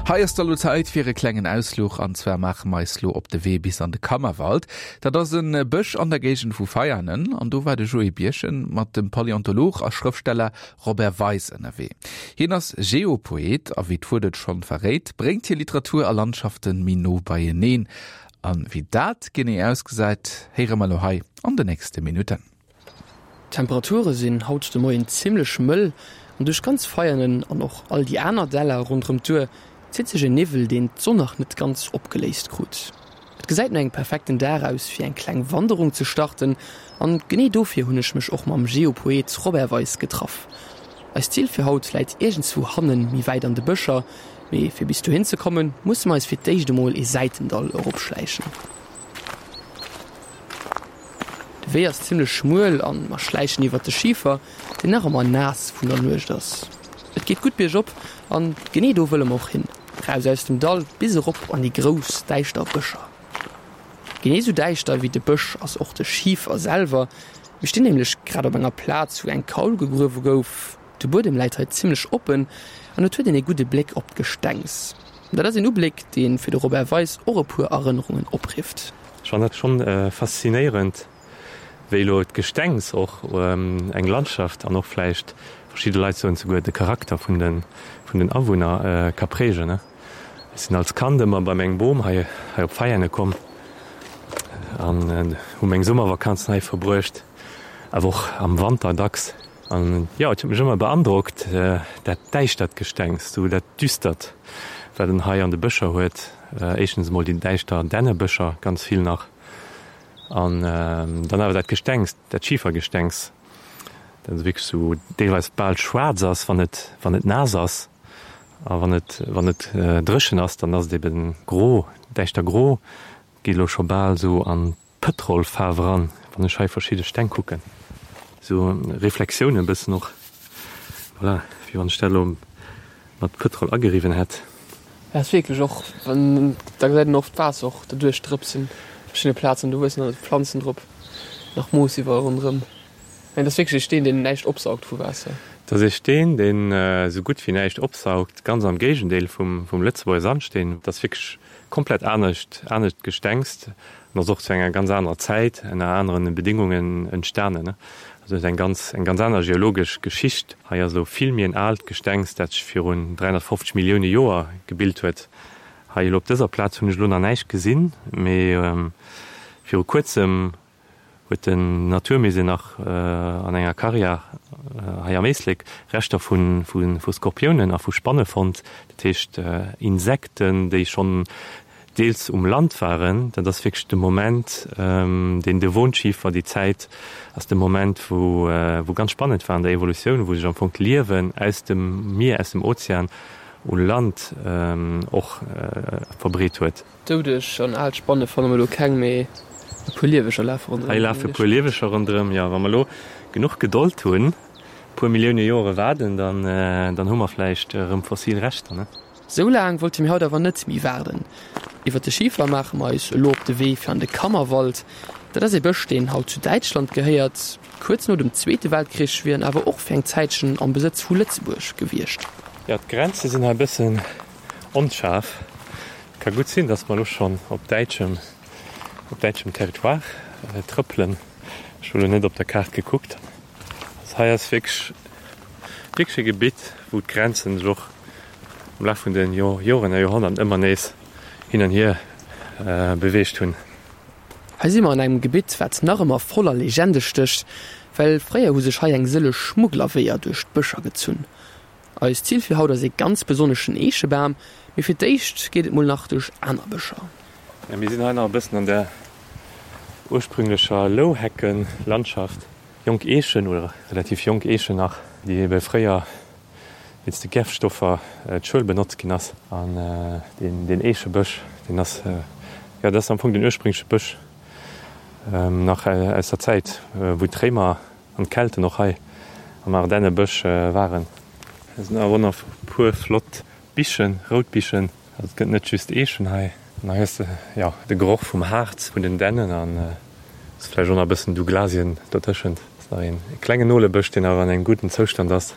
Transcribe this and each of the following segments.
Hei ass da lo Zäit fir e klengen Ausfluch an zwar maache mer eis lo op de Wee bis an de Kammerwald. Dat ass en Bësch an der Géigend vu Veianen an do war de Joé Birchen mat dem Paläontolog a Schrëftsteller Robert Weis ënnerwee. Hien ass Geopoet a wéi d'Wuert et schonn verréit, bréngt hie Literatur a Landschaften méi no beieneen. An wéi dat genee ausgesäit, héiere mer lo hei an de nächste Minutten. D'Temperature sinn haut de Moien zimmlech mëll an duerch ganz Veianen an och all déi aner Däller ronderëm d'Our zitt sech en Niwwel, deen d'Sonn nach net ganz opgeléist krut. Et gesäit no engem perfekten Dag aus fir eng kleng Wanderung ze starten an genee dofir hunn ech mech och mam Geopoet Robert Weis getraff. Eist Zil fir haut läit iergendswou hannen, méi wäit an de Bëscher, mee fir bis dohin ze kommen, musse mer eis fir d'éischt emol ee Säitendall eropschläichen. De Wee ass zimmlech schmuel an mer schläichen iwwert de Schifer, deen nach ëmmer naass vun der Nuecht ass. Et geet gutt biergop an genee do wëlle mer och hin, raus aus dem Dall bis erop an déi grouss däischter Bëscher. Genee sou däischter wéi de Bësch ass och de Schifer selwer. Mir stinn nämlech grad op enger Plaz wou eng Kaul gegruewe gouf. De Buedem läit hei zimmlech oppen an et huet een ee gudde Bléck op d'Gestengs. Dat ass een Ubléck, dee fir de Robert Weis och e puer Erënnerungen oprifft. Ech fannen dat schonn faszinéierend, wéi elo d'Gestengs och eng Landschaft an och vläicht, verschidde Leit soen souguer, de Charakter vun den Awunner ka prägen. Ech sinn als Kand ëmmer bei mengem Bom hei op Veiane komm an hu meng Summervakanzen hei verbruecht, awer och am Wanter dacks. An jo, et huet mech ëmmer beandrockt, dat däischtert Gestengs, sou dat Düstert, wat en hei an de Bëscher huet. Éischtens emol déi däischter Dännebëscher, ganz vill nach, an dann awer dat Gestengs, dat Schifergestengs, dat esou wierklech sou deelweis bal schwaarz ass, wann et, wann et naass ass. A wann et, wann et dréchen ass, dann ass et eben gro, däischter gro, geet elo scho bal sou an Pëtrolfaarf eran, wann ech hei verschidde Steng kucken, sou Reflexiounen e bëssen och, voilà, wéi wann ech dat elo mat Pëtrol ageriwwen hätt. Ja ass wierklech och wann da gesäit een oft d'Waasser och derduerch drëpsen op verschiddene Plazen, do wuessen dann Planzen drop, nach Moos iwwerall ronderëm. Mä et ass wierklech ee Steen deen näischt opsaugt vu Waasser. Et ass ee Steen deen esou gutt wéi näischt opsaugt, ganz am Géigendeel vum Lëtzebuerger Sandsteen. Et ass wierklech komplett anescht, anescht Gestengs an ass och zu enger ganz anerer Zäit, ënner aneren Bedingungen entstanen. Also huet eng ganz, eng ganz aner geologesch Geschicht. Hei ass elo vill méi en aalt Gestengs, dat sech virun 350 Millioune Joer gebilt huet. Hei elo op dëser Plaz hunn ech elo nach näischt gesinn, mee viru kuerzem huet den Naturmusée nach an enger Karriär hei am Éislek Reschter vu Skorpiounen a vu Spanne fonnt, dat heescht Insekten, déi schonn deels um Land waren. Dat ass wierklech de Moment, deen Devonschifer, déi Zäit ass de Moment, wou ganz spannend war an der Evolutioun, wou sech am Fong d'Liewen aus dem Mier, aus dem Ozean u Land och verbreet huet. Doudeg an al Spanne fanne mer do keng, mee e puer Lieweger lafe ronderëm. Hei lafe e puer Lieweger ronderëm, jo. Wa mer elo genuch Gedold hunn, e puer Millioune Joere waarden, dann, dann hu mer vläicht erëm fossil Reschter, ne? Sou laang wollte mir haut awer net méi waarden. Iwwer de Schifer maache mer eis elo op de Wee fir an de Kammerwald. Dat ass ee Bësch, deen haut zu Däitschland gehéiert. Kuerz no dem Zweete Weltkrich wier en awer och fir eng Zäitchen am Besëtz vu Lëtzebuerg gewiescht. Jo, d'Grenze sinn hei e bëssen Onschaarf. Ka gutt sinn, dass mer elo schonn op däitschem, op däitschem Territoire trëppelen. Ech hu lo net op der Kaart gekuckt. Also hei ass wierklech, wierklech e Gebitt, wou d'Grenzen sech och am Laf vun de Joren a Joerhonnerten ëmmer nees hin an hier beweegt hunn. Hei si mer an engem Gebitt, wat nach ëmmer voller Legende stécht, well fréier hu sech hei eng sëlleg Schmugglerweeër duerch d'Bëscher gezunn. Eist Zil fir haut ass ee ganz besonneschen Eechebam, mee fir d'éischt geet et mol nach duerch aner Bëscher. Jo, mir sinn hei nach e bëssen an der ursprünglecher Louheckenlandschaft. Jonk Eechen, oder relativ jonk Eechen nach, déi ebe fréier wéinst de Gärfstoffer d'Schuel benotzt ginn ass. An deen Eechebësch, deen ass, jo, dat ass am Fong den ursprüngleche Bësch nach aus der Zäit, wou d'Réimer An d'Kelten och hei am Ardennebësch waren. Hei sinn awer och nach e puer flott Bichen, rout Bichen. Also et gëtt net just Eechen hei. An hei hues de jo de Geroch vum Harz vun den Dännen an ass vläicht och nach e bëssen Douglasien dotëschent. Ass nach een klengen Nolebësch, deen awer an engem gudden Zoustand ass.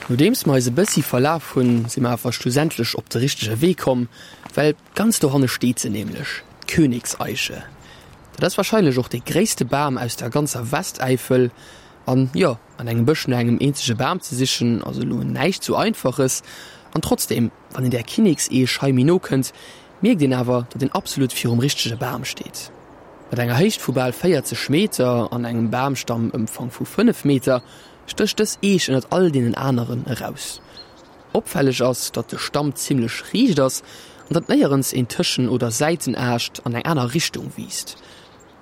Nodeems mer eis e bëssi verlaf hunn, si mer awer schlussendlech op de richtege Wee komm, well ganz dohanne steet se nämlech, d'Königseiche. Dat ass warscheinlech och dee gréisste Bam aus der ganzer Westäifel. An jo, an engem Bësch no engem eenzege Bam ze sichen ass elo näischt sou Einfaches. An trotzdeem, wann een där Kinnekseech hei méi no kënnt, mierkt een awer, datt een absolut virum richtege Bam steet. Mat enger Héicht vu bal 40 Meter an engem Bamstammëmfang vu 5 Meter stécht dës Eech ënnert all deenen aneren eraus. Opfälleg ass, datt de Stamm zimmlech riicht ass an datt néierens een Tëschen oder Säitenaascht an eng aner Richtung wiisst.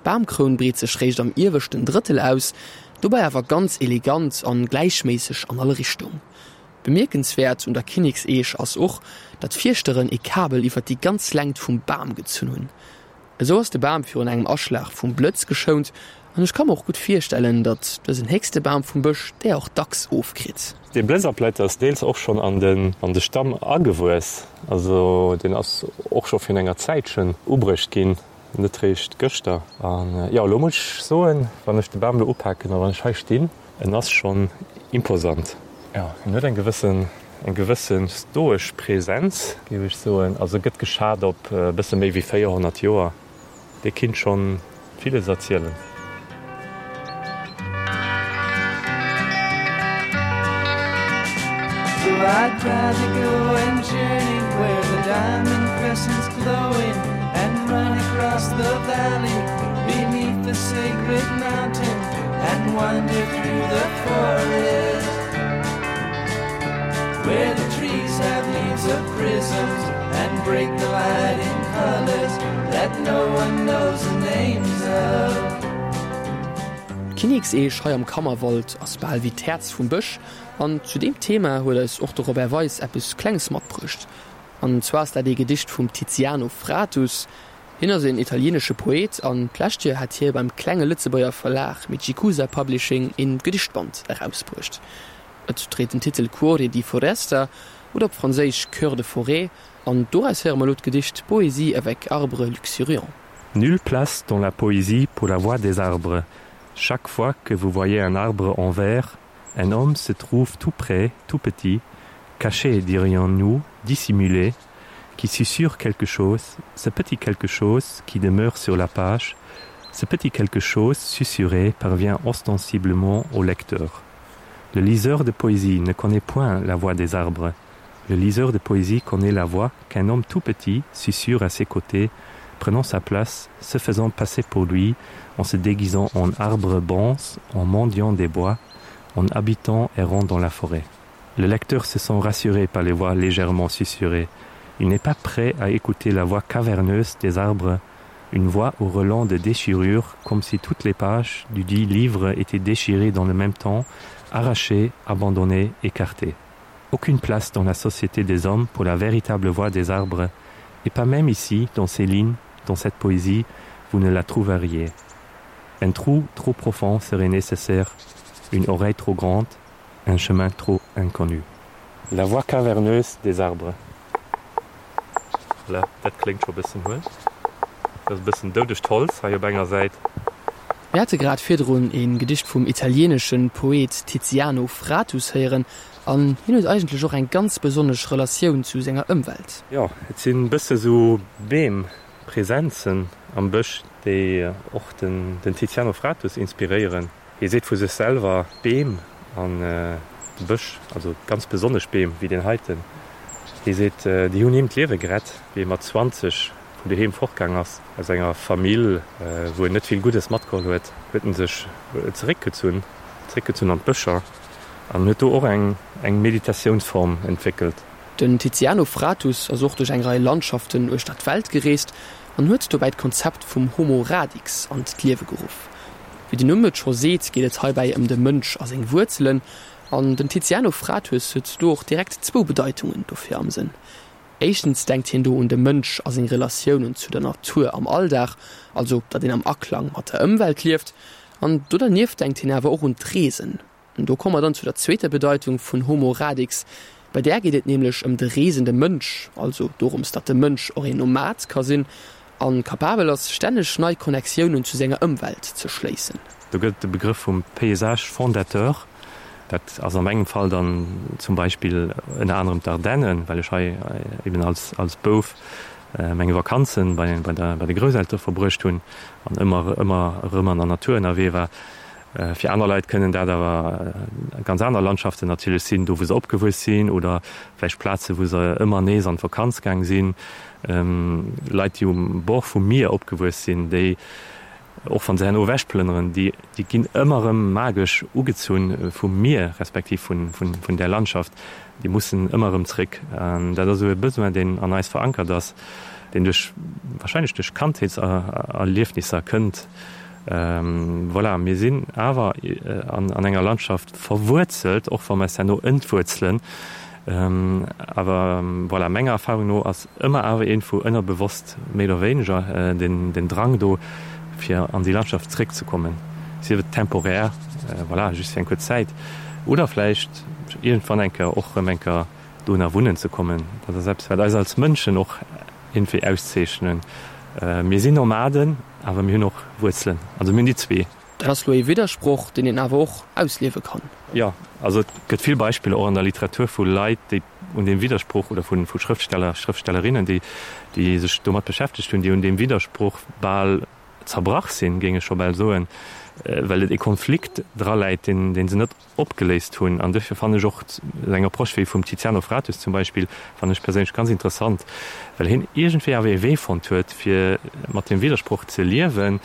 D'Bamkroun breet sech réischt am ieweschten Drëttel aus, dobäi awer ganz elegant an gläichméisseg an all Richtung. Bemierkenswäert un der Kinnekseech ass och, datt d'Fierschteren ee Kabel iwwer déi ganz Längt vum Bam gezunn hunn. Esou ass de Bam virun engem Aschlag vum Blëtz geschount an ech ka mer och gutt virstellen, datt dësen héchste Bam vum Bësch där och dacks ofkritt. Dee Blëtzabletter ass deels och schonn an de Stamm agewuess, also deen ass och scho virun enger Zäitchen ubruecht ginn, net réischt gëschter. An jo, elo muss ech soen, wann ech de Bam elo upaken a wann ech hei stinn, en ass schonn imposant. Jo, en huet eng gewëssen, eng gewësse stoesch Präsenz, géif ech soen. Also gëtt geschat op e bësse méi wéi 400 Joer. Dee kinnt schonn villes erzielen. D'Kinnekseech hei am Kammerwald ass bal wéi d'Häerz vum Bësch an zu deem Thema huet eis och de Robert Weis eppes Klenges matbruecht. An zwar ass dat ee Gedicht vum Tiziano Fratus. Hien ass een italienesche Poet an d'lescht Joer hat hie beim klenge Lëtzebuerger Verlag Michikusa Publishing een Gedichtband erausbruecht. Et dréit den Titel Cuore di foresta oder op Franséisch Cœur de forêt an doraus héiere mer elo d'Gedicht Poésie avec arbres luxuriants. Nulle place dans la poésie pour la voix des arbres. Chaque fois que vous voyez un arbre en vers, un homme se trouve tout près, tout petit, caché, dirions-nous, dissimulé, qui susurre quelque chose, ce petit quelque chose qui demeure sur la page, ce petit quelque chose susurré parvient ostensiblement au lecteur. Le liseur de poésie ne connaît point la voix des arbres. Le liseur de poésie connaît la voix qu'un homme tout petit susurre à ses côtés, prenant sa place, se faisant passer pour lui, en se déguisant en arbre bonce, en mendiant des bois, en habitant errant dans la forêt. Le lecteur se sent rassuré par les voix légèrement susurrées. Il n'est pas prêt à écouter la voix caverneuse des arbres, une voix au relent de déchirure, comme si toutes les pages du dit livre étaient déchirées dans le même temps, arrachées, abandonnées, écartées. Aucune place dans la société des hommes pour la véritable voix des arbres, et pas même ici, dans ces lignes, dans cette poésie, vous ne la trouveriez. Un trou trop profond serait nécessaire, une oreille trop grande, un chemin trop inconnu. La voix caverneuse des arbres. Voilà, dat kléngt scho bëssen huel. Dat ass e bëssen doudegt Holz hei op enger Säit. Mir hate grad virdrun e Gedicht vum italieenesche Poet Tiziano Fratus héieren an hien huet eigentlech och eng ganz besonnesch Relatioun zu senger Ëmwelt. Jo, et sinn bësse sou Beem-Präsenzen am Bësch, déi och den Tiziano Fratus inspiréieren. Hie seet vu sech selwer, D'Beem an de Bësch, also ganz besonnesch Beem wéi deen heiten, hie seet, déi hunn him d'Liewe gerett, wéi e mat 20 vun doheem fortgaang ass, aus enger Famill, wou en net vill Guddes matgeholl huet, huet en sech zeréckgezunn, zeréckgezunn an d'Bëscher an huet do och eng eng Meditatiounsform entwéckelt. Den Tiziano Fratus ass och duerch eng Rei Landschaften uechter d'Welt gereest an huet dobäi d'Konzept vum Homo Radix an d'Liewe geruff. Wéi den Numm et scho seet, geet et heibäi ëm de Mënsch a seng Wuerzelen. An den Tiziano Fratus huet do och direkt zwou Bedeitungen dofir am Sënn. Éischtens denkt hien do un de Mënsch a seng Relatiounen zu der Natur am Alldag, also datt een am Aklang mat der Ëmwelt lieft. An do dernieft denkt hien awer och un d'Reesen. Do komme mer dann zu der zweeter Bedeitung vun Homo Radix. Bei där geet et nämlech ëm de reesende Mënsch, also dorëms, datt de Mënsch och een Nomad ka sinn a kapabel ass, stänneg nei Connectiounen zu senger Ëmwelt ze schléissen. Do gëtt et de Begrëff vum Paysage fondateur. Dat ass a mengem Fall dann zum Beispill ënner anerem d'Ardennen, well ech hei eben als als Bouf meng Vakanzen bei bei der bei de Grousseltere verbruecht hunn an ëmmer ëmmer erëm an der Natur ënnerwee war. Fir aner Leit kënnen dat awer ganz aner Landschaften natierlech sinn, do wou se opgewuess sinn oder vläicht Plaze wou se ëmmer nees an d'Vakanz gaang sinn. Leit déi um Bord vum Mier opgewuess sinn, déi och wa se herno ewechplënneren, déi déi ginn ëmmer erëm magesch ugezunn vum Mier respektiv vun vun där Landschaft. Déi mussen ëmmer erëm zréck. Dat ass esou e Besoin deen an eis verankert ass, deen duerch wahrscheinlech duerch Kandheetserliefnisser kënnt. Voilà, mir sinn awer an enger Landschaft verwuerzelt, och wa mer eis herno entwuerzelen. Awer voilà, menger Erfahrung no ass ëmmer awer iergendwou ënnerbewosst méi oder wéineger den Drang do, fir an déi Landschaft zréckzekommen, sief et temporär, voilà, just fir eng kuerz Zäit, oder vläicht iergendwann eng Kéier och erëm eng Kéier dohinner wunnen ze kommen. Dat ass eppes, wat eis als Mënschen och iergendwéi auszeechnen. Mir sinn Nomaden, awer mir hunn och Wuerzelen. Also mir hunn déi zwee. Dat ass lo ee Widdersproch, deen een awer och ausliewe kann. Jo, also et gëtt vill Beispiller och an der Literatur vu Leit, déi un deem Widdersproch, oder vu Schrëftsteller, Schrëftstellerinnen, déi déi sech domat beschäftegt hunn, déi un deem Widdersproch bal zerbrach sinn, géing ech scho bal soen, well et ee Konflikt draläit, deen dee se net opgeléist hunn. An duerfir fannen ech och esou eng Approche wéi vum Tiziano Fratus zum Beispill, fannen ech perséinlech ganz interessant, well hien iergendwéi awer ee Wee fonnt huet, fir mat deem Widdersproch ze liewen,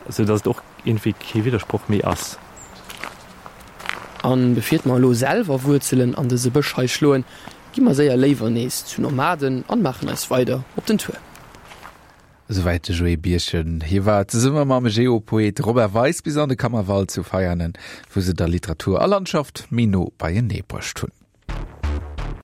esou datt et och iergendwéi kee Widdersproch méi ass. A befiert mer elo selwer Wuerzelen an dëse Bësch hei schloen, gi mer séier léiwer nees zu Nomaden an maachen eis weider op den Tour. Esouwäit de Joé Birchen. Hie war zesumme mam Geopoet Robert Weis bis an de Kammerwald zu Veianen, wou se da Literatur a Landschaft méi no beienee bruecht hunn.